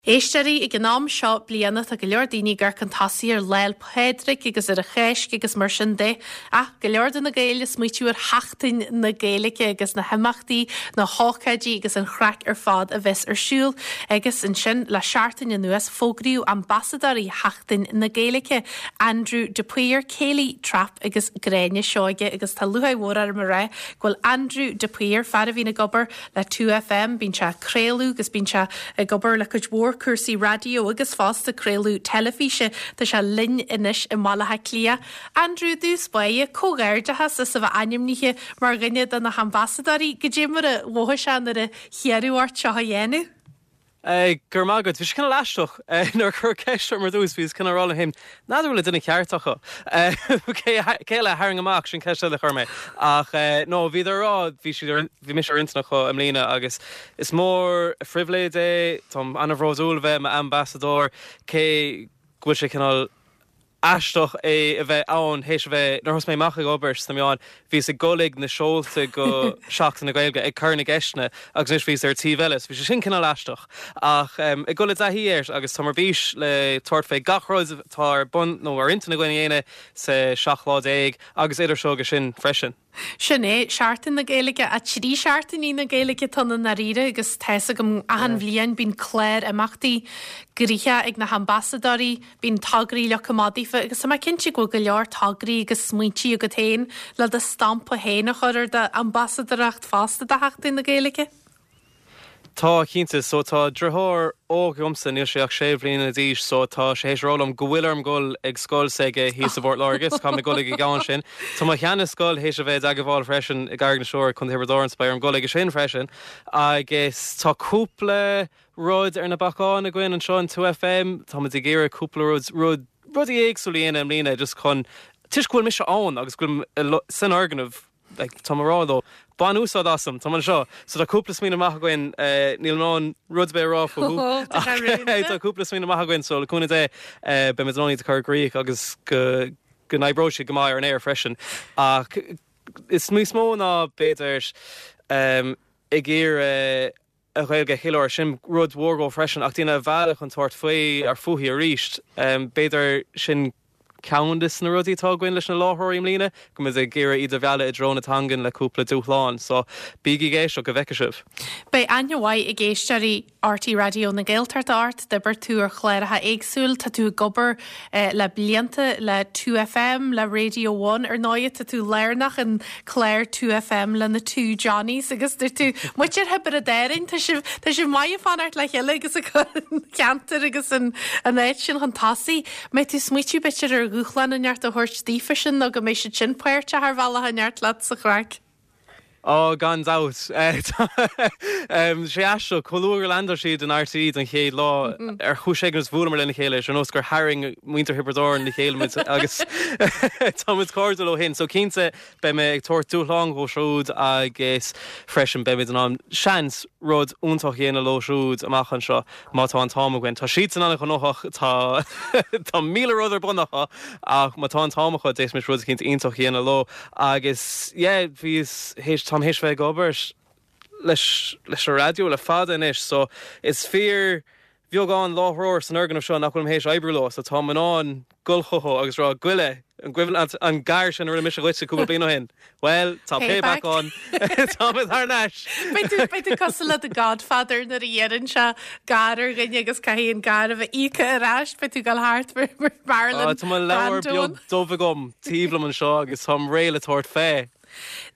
Éisteoirí, ag an am seo bliana tá go leor daoine ag amharc chun tosaigh ar Lá 'le Pádraig agus ar an Cháisc agus mar sin de. Ach go leor de na Gaeil ag smaoitiú ar Sheachtain na Gaeilge agus na himeachtaí, na hócáidí agus an chraic ar fad a bheas ar siúl. Agus ansin le seachtain anuas fógraíodh ambasadóirí Sheachtain na Gaeilge, Andrew de Paor, Kayleigh Trapp agus Gráinne Seoige agus tá lúcháir mhór orm a rá go bhfuil Andrew de Paor, fear a bhíonn ag obair le 2FM, bíonn sé ag craoladh agus bíonn sé ag obair le cuid mhór cúrsaí raidió agus fosta craoladh teilifíse. Tá sé linn anois i mBaile Átha Cliath. Andrew, i dtús báire, comhghairdeachas as a bheith ainmnithe mar dhuine de na hambasadóirí. Goidé mar a mhothaigh sé nuair a hiarradh ort seo a dhéanamh? Go raibh maith agat. Bhí sé cineál aisteach. Nuair a cuireadh ceist orm ar dtús, bhíos cineál ag rá liom féin, n'fheadar bhfuil an duine ceart acu. Cé eile a tharraing amach? Sin ceist eile a chuir mé. Ach no, bhíodar ag rá, bhí siad ar, bhí mise ar intinn acu i mbliana agus is mór an phribhléid é, táim an-bhródúil a bheith i m'ambasadóir, cé go bhfuil sé cineál aisteach é a bheith ann théis a bheith, nuair a thosaigh mé amach ag obair sna meáin, bhíos ag dul ag na seolta go Seachtain na Gaeilge ag cur na gceisteanna agus anois bhíos ar an taobh eile so bhí sé sin cineál aisteach. Ach ag dul i dtaithí air agus táim ar bís le tabhairt fé gach rud atá ar bun nó ar intinn againn a dhéanamh sa 17 lá agus idir seo agus sin freisin. Sin é, Seachtain na Gaeilge, 3 seachtainí na Gaeilge atá ann i ndáiríre agus tá's agam achan bhliain bíonn clár imeachtaí gnoitheach ag na hambasadóirí, bíonn tograí leagtha amach daofa agus tá mé cinnte go bhfuil go leor tograí agus smaointí agat féin le do stampa féin a chur ar d'ambasadóireacht fosta do Sheachtain na Gaeilge. Tá, cinnte. So tá driotháir óg agamsa, níl sé ach sé bhliana d'aois, so tá sé théis a rá liom go bhfuil orm dul ag scoil s'aige thíos i bPort Láirge, so caithfidh mé dul ag an gceann sin. Tá mo sheana-scoil théis a bheith i dteagmháil freisin i gCarraig na Siúire, Contae Thiobraid Árann, so beidh orm dul aige sin freisin. Agus tá cúpla rud ar na bacáin againn anseo in 2FM, táimid ag iarraidh cúpla rud, rud, rudaí éagsúla a dhéanamh i mbliana just chun, toisc go bhfuil mise ann agus go bhfuilim san fhoirgneamh, like, táim ag rá leo, bain úsáid asam, táim anseo. So tá cúpla smaoineamh maith againn, níl mé in ann rud ar bith a rá fúthu, ach tá cúpla smaoineamh maith againn, so le cúnamh Dé, beimid in ann iad a chur i gcrích agus go go n-oibreoidh siad go maith ar an aer freisin. Ach is níos mó ná b'fhéidir ag iarraidh an Ghaeilge a cheiliúradh, sin rud mhór dhó freisin, ach daoine a mhealladh chun tabhairt faoi ar fúithi arís. B'fhéidir sin ceann de na rudaí atá againn leis na láithreoirí i mbliana, go mbeidh ag iarraidh iad a mhealladh i dtreo na teangan le cúpla dúshlán. So, bígí ag éisteacht go bhfeicfidh sibh. Beidh aithne mhaith ag éisteoirí RTÉ Raidió na Gaeltachta ort, d'oibir tú ar chláracha éagsúil, tá tú ag obair le blianta le 2FM, le Radio One, ar ndóigh tá tú lárnach in clár 2FM le na Two Johnnies agus dúirt tú, muintir Thiobraid Árann, tá sibh, tá sibh maith ag fanacht le chéile agus ag cur an cheantar agus an áit sin chun tosaigh. Mbeidh tú ag smaoitiú b'fhéidir ar dhúshlán inteacht a thabhairt daofa sin nó go mbeidh siad sin páirteach ar bhealach inteacht leat sa chraic? Ó, gan dabht. Tá sé aisteach, chomh luath gur landáil siad in RTÉ don chéad lá, ar chúis éigin is bhuaileamar lena chéile, is ar nós gur tharraing muintir Thiobraid Árann le chéile muid agus tá muid cairdiúil ó shin. So cinnte, beidh mé ag tabhairt dúshlán dhóibh siúd agus freisin beimid in ann, seans, rud iontach a dhéanamh leo siúd amach anseo má tá an t-am againn. Tá siadsan an-ghnóthach, tá tá 1,000 rud ar bun acu ach má tá an t-am acu d'fhéadfaimis rud eicínt iontach a dhéanamh leo. Agus yeah, bhíos théis, táim théis bheith ag obair leis, leis an raidió le fada anois so is fíor bheagán láithreoir san fhoirgneamh seo nach bhfuilim théis oibriú leo so táim in ann dul chucu agus rá Goile, an gcuimhin leat an gar sin a rinne mise dhuitse cúpla bliain ó shin? Bhuel, tá payback ann, táimid thar n-ais! Beidh tú, beidh tú cosúil le The Godfather nuair a iarrann sé gar ar dhuine agus caithfidh an gar a bheith íoctha ar ais, beidh tú ag dul thart mar Marlon Tá mo leabhar Brando. beag dubh agam taobh liom anseo agus táim réidh le tabhairt fé.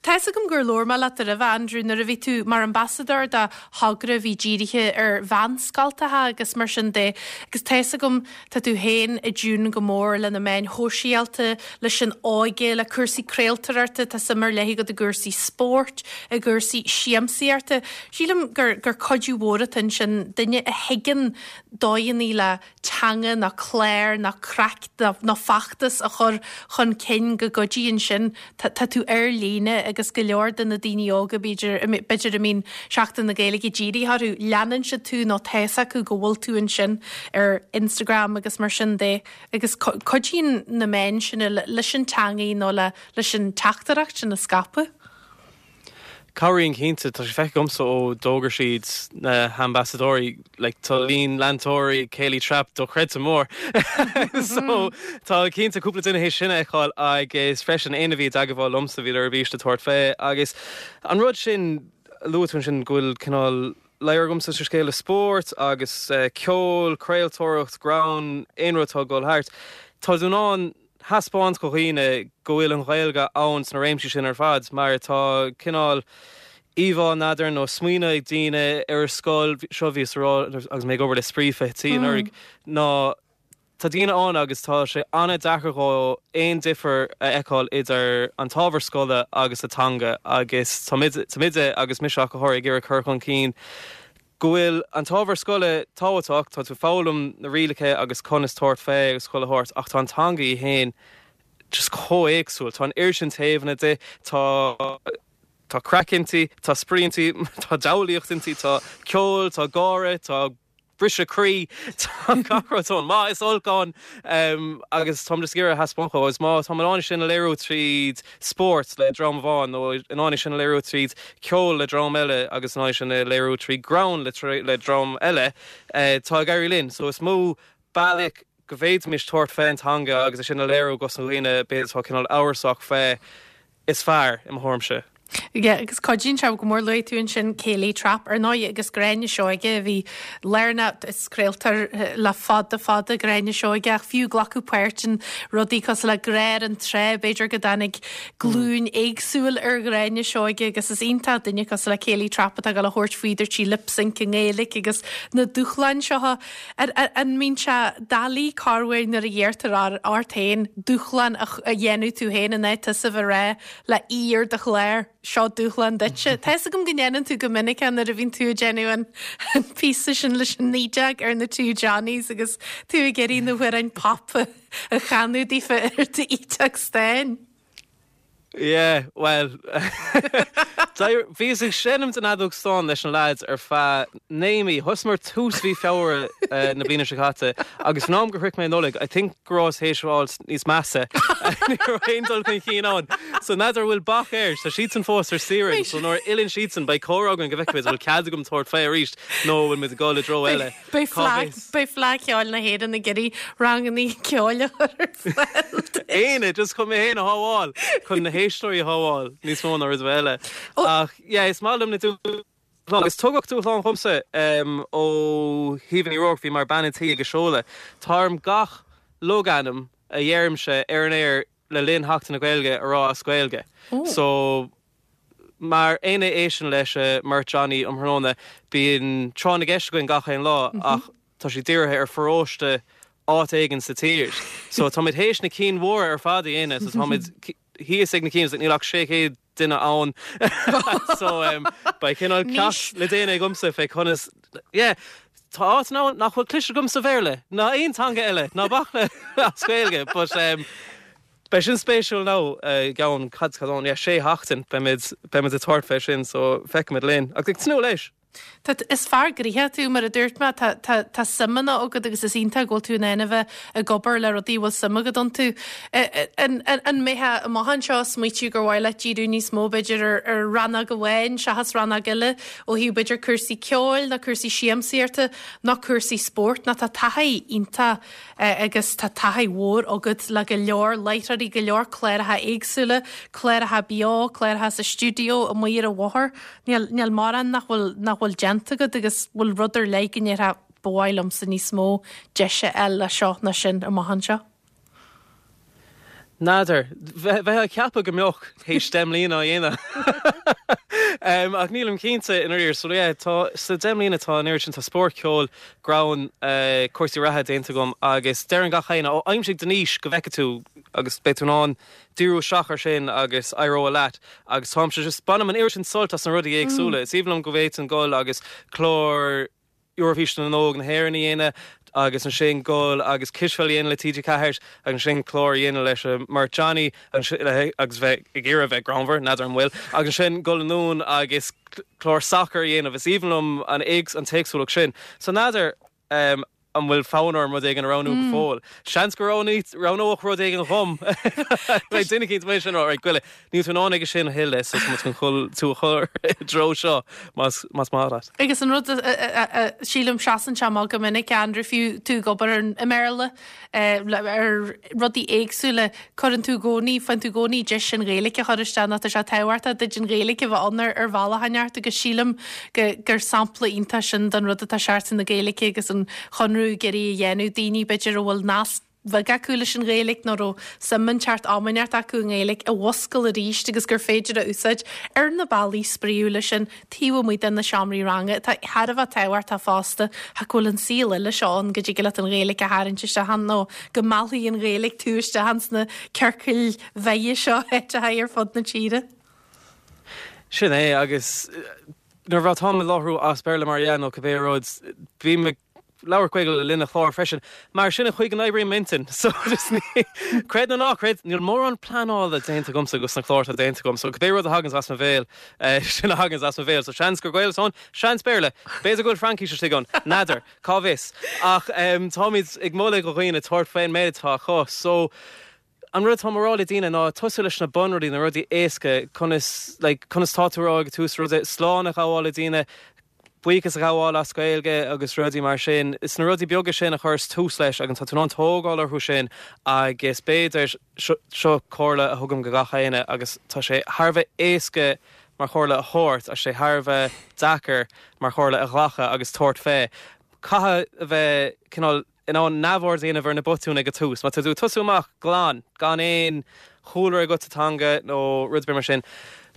Tá's agam gur labhair mé leat roimhe, Andrew, nuair a bhí tú mar ambasadóir do thogra a bhí dírithe ar mheánscoltacha agus mar sin de agus tá's agam tá tú féin i dtiún go mór le na meáin shóisialta, leis an óige, le cúrsaí craoltóireachta, tá suim ar leith agat i gcúrsaí spóirt, i gcúrsaí siamsaíochta. Sílim gur gur cuidiú mhór atá ansin, duine a thuigeann dóigheanna le teanga ná clár ná craic ná feachtas a chur chun cinn go gcuidíonn sin. Tá tú ar líne agus go leor de na daoine óga, b'fhéidir, b'fhéidir a mbíonn Seachtain na Gaeilge dírithe orthu, leanann siad tú nó tá fhios acu go bhfuil tú ansin ar Instagram agus mar sin de agus cuidíonn na meáin sin leis an teangaidh nó leis an teachtaireacht sin a scaipeadh. Cabhraíonn cinnte, tá sé feicthe agamsa ó d'fhógair siad na hambasadóirí, like tá líon leantóirí Céilí Trap dochreidte mór. So tá cinnte cúpla duine théis sin a fheiceáil agus freisin éinne a bhí i dteagmháil liomsa bhíodar ar bís le tabhairt fé agus an rud sin a luaigh tú ansin go bhfuil cineál ladhar agamsa sa scéal le spórt agus ceol, craoltóireacht, greann, aon rud atá ag dul thart, tá tú in ann thaispeáint do dhaoine go bhfuil an Ghaeilge ann sna réimsí sin ar fad mar tá cineál íomhá, n'fheadar, nó smaoineamh ag daoine ar an scoil, seo bhíos a rá agus mé ag obair le Spraoi 20 anuraidh, ná tá daoine ann agus tá sé an-deacair dhó aon difear a fheiceáil idir an t-ábhar scoile agus an teanga agus táimid, agus mise ach go háirithe, ag iarraidh cur chun cinn go bhfuil an t-ábhar scoile tábhachtach, tá tú ag foghlaim na rialacha agus conas tabhairt fé agus chuile shórt ach tá an teanga í fhéin just chomh éagsúil, tá an oiread sin taobhanna di, tá tá craic inti, tá spraoi inti, tá diabhlaíocht inti, tá ceol, tá gáire, tá briseadh croí, tá gach rud ann, maith is olc ann agus táim just ag iarraidh a thaispeáint dhó agus má táim in ann é sin a léiriú tríd spórt le dream amháin nó in ann é sin a léiriú tríd ceol le dream eile agus in ann é sin a léiriú trí greann le dream eile, tá ag éirí linn. So is mó bealach go bhféadfaimis tabhairt fén teanga agus é sin a léiriú dos na dhaoine b'fhéidir atá cineál amhrasach fé is fearr, i mo thuairimse. Yeah, agus cuidíonn sé go mór luaigh tú ansin Céilí Trap ar ndóigh agus Gráinne Seoige a bhí lárnach is craoltóir le fada fada Gráinne Seoige ach fiú glacadh páirt in rudaí cosúil le Grá ar an Trá b'fhéidir go dtáinig glúin éagsúil ar Ghráinne Seoige agus is iontach duine cosúil le Céilí Trap atá ag dul a thabhairt faoi dúirt sí lip sync i nGaeilge agus na dúshláin seo. An mbíonn sé doiligh corruair nuair a iarrtar ort féin dúshlán a dhéanamh tú féin in áit tusa a bheith ag rá le aoi ar do chlár, seo dúshlán duitse. Tá fhios agam go ndéanann tú go minic é nuair a bhíonn tú ag déanamh an píosa sin leis an Ídeach ar na Two Johnnies agus tú ag iarraidh na hamhráin pop a chanadh daofa ar d'ídeach stáin. Yeah, bhuel, bhíos ag seinm den fheadóg stáin leis na lads ar feadh 9 mí. Thosaíomar tús mhí Feabhra na bliana seo caite agus faoin am gur shroich mé Nollaig, I think go rabhas théis fháil níos measa. Ní raibh aon dul chun cinn ann. So n'fheadar an bhfuil bac air. Tá siadsan fós ar saoire, so nuair a fhilleann siadsan beidh comhrá againn go bhfeicfimid an bhfuil cead agam tabhairt fé arís nó an bhfuil muid ag dul i dtreo eile. Beidh Fleadh Cheoil na hÉireann ag iarraidh ranganna ceoil a chur ar fáil duit. Éinne, just chun mé féin a shábháil, chun na héisteoirí a shábháil, níos mó ná rud ar bith eile. Ach yeah, is maith liom na dúshláin. Agus tugadh dúshlán dhomsa ó Shíomha Ní Ruairc, bhí mar bean an tí ag a seoladh. Tá orm gach logainm a dheirimse ar an aer le linn Sheachtain na Gaeilge a rá as Gaeilge. So. Mar éinne a éisteann leis mBeirt Johnny um thráthnóna, bíonn tráth na gceist againn gach aon lá ach tá sé dírithe ar pharóiste áit éigin sa tír. So táimid théis na cinn mhóra ar fad a dhéanamh, so táimid thíos ag na cinn, níl ach 600 duine ann. So beidh cineál ceacht le déanamh agamsa fé conas, yeah, tá áit ann nach bhfuil cloiste agam sa Bhéarla ná aon teanga eile, ná bac le as Gaeilge, but Beidh sin spéisiúil now i gceann, cad, cad ann, yeah, sé sheachtain beimid, beimid ag tabhairt fé sin so feicfimid linn. Ach ag tnúth leis. Tá, is fear gnoitheach tú, mar a dúirt mé, tá, tá, tá suimeanna agat agus is iontach go bhfuil tú in ann a bheith ag obair le rudaí a bhfuil suim agat iontu. An, an, an mbeifeá amach anseo ag smaoitiú gur mhaith leat díriú níos mó b'fhéidir ar, ar rannóg amháin seachas rannóg eile ó thaobh b'fhéidir cúrsaí ceoil nó cúrsaí siamsaíochta nó cúrsaí spóirt nó tá taithí iontach agus tá taithí mhór agat le go leor láithreoirí, go leor cláracha éagsúla, cláracha beo, cláracha sa stiúideo, amuigh ar an bhóthar. Níl, níl mórán nach bhfuil, nach bhfuil déanta agat agus bhfuil rud ar leith go ndéarfá ba mhaith liomsa níos mó deis a fháil le seo ná sin amach anseo? N'fheadar. Bheifeá ag ceapadh go mbeadh théis 10 mbliana á dhéanamh. Ach nílim cinnte i ndáiríre. So yeah, tá, sa 10 mbliana tá an oiread sin, tá spórt, ceol, greann, cúrsaí reatha déanta agam agus deireann gach éinne, ó aimsigh do niche go bhfeicfidh tú agus beidh tú in ann díriú isteach ar sin agus éireoidh leat. Agus táimse just, bainim an oiread sin sult as na rudaí éagsúla. Is aoibhinn liom go bhféadfainn dul agus clár, Eoraifís na nÓg na hÉireann a dhéanamh agus ansin dul agus cispheil a dhéanamh le TG4 agus ansin clár a dhéanamh leis an mBeirt Johnny agus bheith ag iarraidh a bheith greannmhar, n'fheadar an bhfuil, agus ansin dul anonn agus clár sacair a dhéanamh. Is aoibhinn liom an an t-éagsúlacht sin. So n'fheadar. an bhfuil fonn orm rud éigin a roghnú go fóill. Seans go roghnódh rud éigin dhom. Beidh duine eicínt amuigh ansin a rá, right, goile, níl tú in ann aige sin a thuilleadh so tá muid chun chul tú a chur i dtreo seo más más maith leat. Agus an rud a sílim seasann sé amach go minic, Andrew, fiú tú ag obair i mBéarla, ar rudaí éagsúla, cuireann tú i gcónaí, faigheann tú i gcónaí deis an Ghaeilge a chur isteach nó tá sé tábhachtach duit an Ghaeilge a bheith ann ar bhealach inteacht agus sílim go gur sampla iontach sin den rud atá Seachtain na Gaeilge agus an Conradh ag iarraidh a dhéanamh, daoine b'fhéidir a bhfuil nasc bheag acu leis an Ghaeilge nó raibh suim inteacht am inteacht acu i nGaeilge a mhuscail arís agus gur féidir a úsáid ar na bealaí spraíúla sin taobh amuigh de na seomraí ranga atá thar a bheith tábhachtach fosta ach go bhfuil an saol eile seo ann go dtig leat an Ghaeilge a tharraingt isteach ann nó go meallfaidh an Ghaeilge tú isteach ins na ciorcail bheaga seo áiteacha ar fud na tíre. Sin é agus nuair atáim ag láithriú as Béarla mar dhea nó cibé rud, bím ag labhairt Gaeilge le linn an chláir freisin. Mar sin an chaoi go n-oibríonn m'intinn. So just ní, creid nó ná creid, níl mórán pleanála déanta agamsa dos na cláir atá déanta agam. So cibé rud a thaganns as mo bhéal, sin a thaganns as mo bhéal. So seans gur Gaeilge atá ann, seans Béarla. B'fhéidir go bhfuil Fraincis istigh ann. N'fheadar. Cá bhfios. Ach táimid ag moladh do dhaoine tabhairt faoin méid atá acu. So an rud atáim a rá le daoine ná tosú leis na bunrudaí, na rudaí éasca, conas, like, conas tá tú a rá ag tús rud, slán a ghabháil le daoine, buíochas a ghabháil as Gaeilge agus rudaí mar sin. Is na rudaí beaga sin a chuireas tús leis agus tá tú in ann tógáil orthu sin agus b'fhéidir, seo comhairle a thugaim go gach éinne agus tá sé thar a bheith éasca mar chomhairle a thabhairt ach sé thar a bheith deacair mar chomhairle a ghlacadh agus tabhairt fé. Caithfidh a bheith cineál in ann neamhaird a dhéanamh ar na botúin ag an tús. Má tá tú ag tosú amach glan, gan aon chúlra agat sa teanga nó rud ar bith mar sin,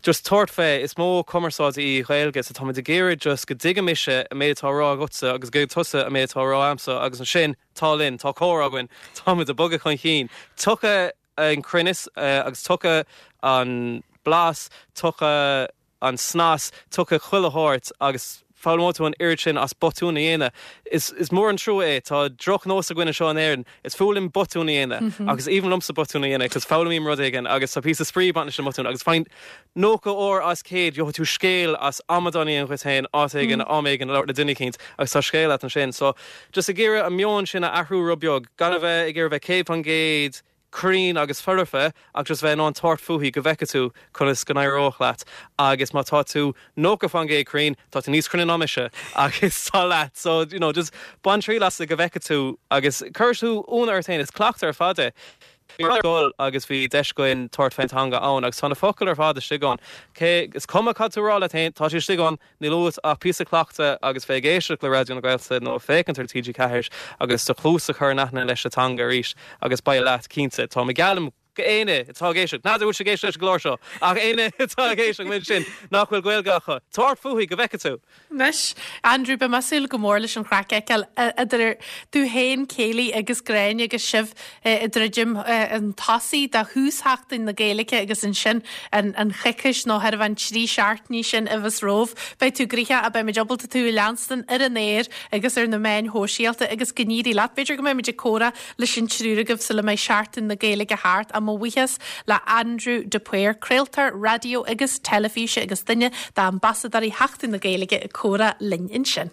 just tabhairt fé. Is modh cumarsáide í Gaeilge so táimid ag iarraidh just go dtuigfidh mise an méid atá á rá agatsa agus go dtuigfidh tusa an méid atá á rá a'msa agus ansin tá linn, tá comhrá againn, táimid ag bogadh chun cinn. Tiocfaidh an cruinneas agus tiocfaidh an blas, tiocfaidh an snas, tiocfaidh chuile shórt agus foghlaimeoidh tú an oiread sin as botúin a dhéanamh. Is is mór an trua é, tá drochnós againn anseo in Éirinn, is fuath linn botúin a dhéanamh agus is aoibhinn liomsa botúin a dhéanamh cos foghlaimím rud éigin agus tá píosa spraoi ag baint leis an mbotún agus faigheann 90 uair as 100 gheobhaidh tú scéal as amadán a dhéanamh dhuit féin áit éigin, am éigin, ag labhairt le duine eicínt agus tá scéal agat ansin. So just ag iarraidh an meon sin a athrú rud beag, gan a bheith ag iarraidh bheith 100% cruinn agus foirfe ach just bheith in ann tabhairt fúithi go bhfeicfidh tú conas go n-éireoidh leat agus má tá tú 90% cruinn, tá tú níos cruinne ná mise agus tá leat so you know just bain triail as go bhfeicfidh tú agus cuirfidh tú ionadh ort féin, is cleachtadh ar fad é. Bhí mé ar scoil agus bhí deis againn tabhairt fén teanga ann agus tá na focail ar fad istigh ann. Cé, is cuma cad tú a rá leat féin, tá siad istigh ann. Níl uait ach píosa cleachtaidh agus bheith ag éisteacht le Raidió na Gaeltachta nó ag féachaint ar TG4 agus do chluas a chur in aithne leis an teanga arís agus beidh leat, cinnte. Tá mé geallaim go éinne atá ag éisteacht, n'fheadar bhfuil siad ag éisteacht leis an gclár seo, ach éinne atá ag éisteacht uainn sin nach bhfuil Gaeilge acu, tabhairt fúithi go bhfeicfidh tú! Anois, Andrew, beidh mé ag súil go mór leis an chraic a fheiceáil idir tú féin, Kayleigh agus Gráinne agus sibh ag druidim chun tosaigh do thús Sheachtain na Gaeilge agus ansin an choicís nó thairbhe an 3 seachtainí sin a bheas romhaibh. Beidh tú gnoitheach ach beimid ábalta tú a leanstan ar an aer agus ar na meáin shóisialta agus go n-éirí leat. B'fhéidir go mbeimid ag comhrá leis an triúr agaibh sula mbeidh Seachtain na Gaeilge thart ach mo bhuíochas le Andrew de Paor, craoltóir raidió agus teilifíse agus duine d'ambasadóirí Sheachtain na Gaeilge ag comhrá linn ansin.